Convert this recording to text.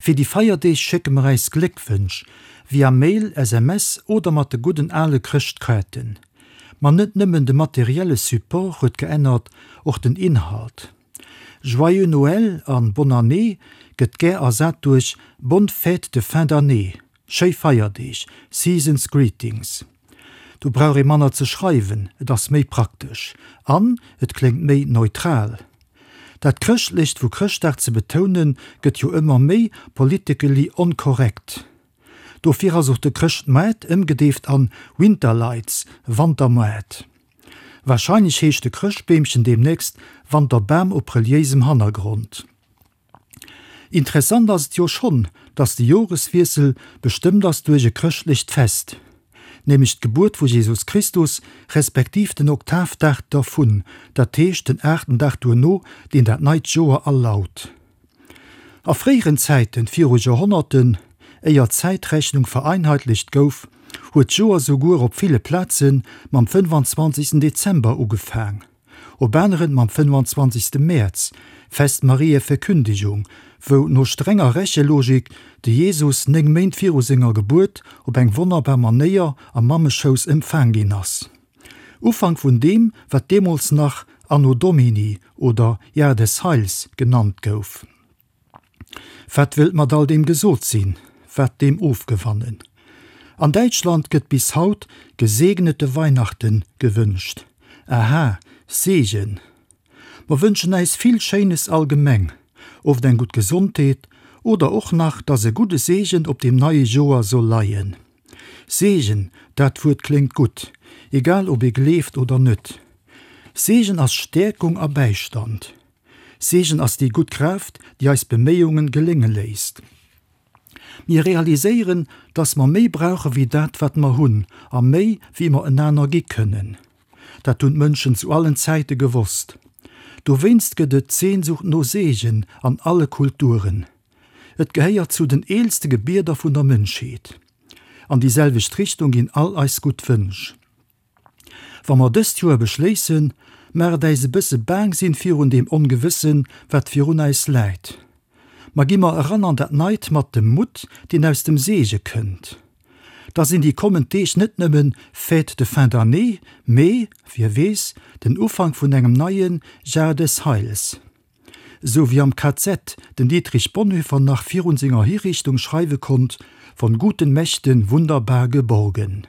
Fir déi Feierdeeg schécke mer äis Gléckwënsch via Mail, SMS oder mat de gudden ale Chrëschtkaarten. Ma net nëmmen de materielle Support huet geännert, och den Inhalt. Joyeux Noël an Bonne Année gëtt gär ersat duerch Bonne fête de fin d'année, Schéi Feierdeeg, Season's Greetings. Do brauch ee manner ze schreiwen, et ass méi praktesch an et kléngt méi neutral. Dat Chrëschtlecht vu Chrëschtdag ze betounen, gëtt jo ëmmer méi politically onkorrekt. Dofir ass och de Chrëschtmoart ëmgedeeft an Winterlights, Wantermoart. Warscheinlech heescht de Chrëschtbeemchen deemnächst Wanterbam op reliéisem Hannergrond. Interessant ass et jo schonn, dass de Joreswiessel bestëmmt ass duerch e chrëschtlecht Fest, nämlech d'Gebuert vu Jesus Christus, respektiv den Oktavdag dervun, dat heescht den aachten Dag duerno, deen dat neit Joer alaut. A fréieren Zäiten, viru Joerhonnerten, éier d'Zäitrechnung vereinheitlecht gouf, huet d'Joer souguer op ville Plaze mam 25. Dezember ugefaang. Op aneren mam 25. Mäerz, Fest Mariä Verkündigung, wou no strenger Rechelogik de Jesus 9 Méint viru senger Gebuert op eng wonnerbar Manéier am Mammeschouss empfaang ginn ass. Ufank vun deem, wat deemools nach Anno Domini oder Jahr des Heils genannt gouf. Wat wëllt mat all deem gesot sinn? Wat deem ofgewannen? An Däitschland gëtt bis haut gesegnete Weihnachten gewënscht. Aha, Segen! Mer wënschen äis vill Schéines allgemeng, oft eng gutt Gesondheet oder och nach, dass e gudde Segen op deem neie Joer soll leien. Segen, dat Wuert kléngt gutt, egal ob ee gleeft oder net. Segen ass Stäerkung a Bäistand. Segen ass déi gutt Kraaft, déi eis Beméiungen gelénge léisst. Mir realiséieren, dass mer méi brauche wéi dat, wat mer hunn, a méi, wéi mer enaner gi kënnen. Dat hunn d'Mënschen zu allen Zäite gewosst. Dowéinst gëtt et d'Sehnsucht no Segen an alle Kulturen. Et gehéiert zu den eelste Gebieder vun der Mënschheet. An déi selwecht Richtung ginn all eis gutt Wënsch. Wa mer dëst Joer beschléissen, mag et äis e bësse baang sinn virun deem Ongewëssen, wat virun äis läit. Ma gi mer eran an dat Neit mat dem Mutt, deen aus dem Seege kënnt. Da sinn déi kommend Deeg net nëmmen Fête de fin d'année, mee, wie weess, den Ufank vun engem neie Jahr des Heils. Esou wéi am KZ den Dietrich Bonhoeffer nach virun senger Hiriichtung schreiwe konnt, Von guten Mächten wunderbar geborgen.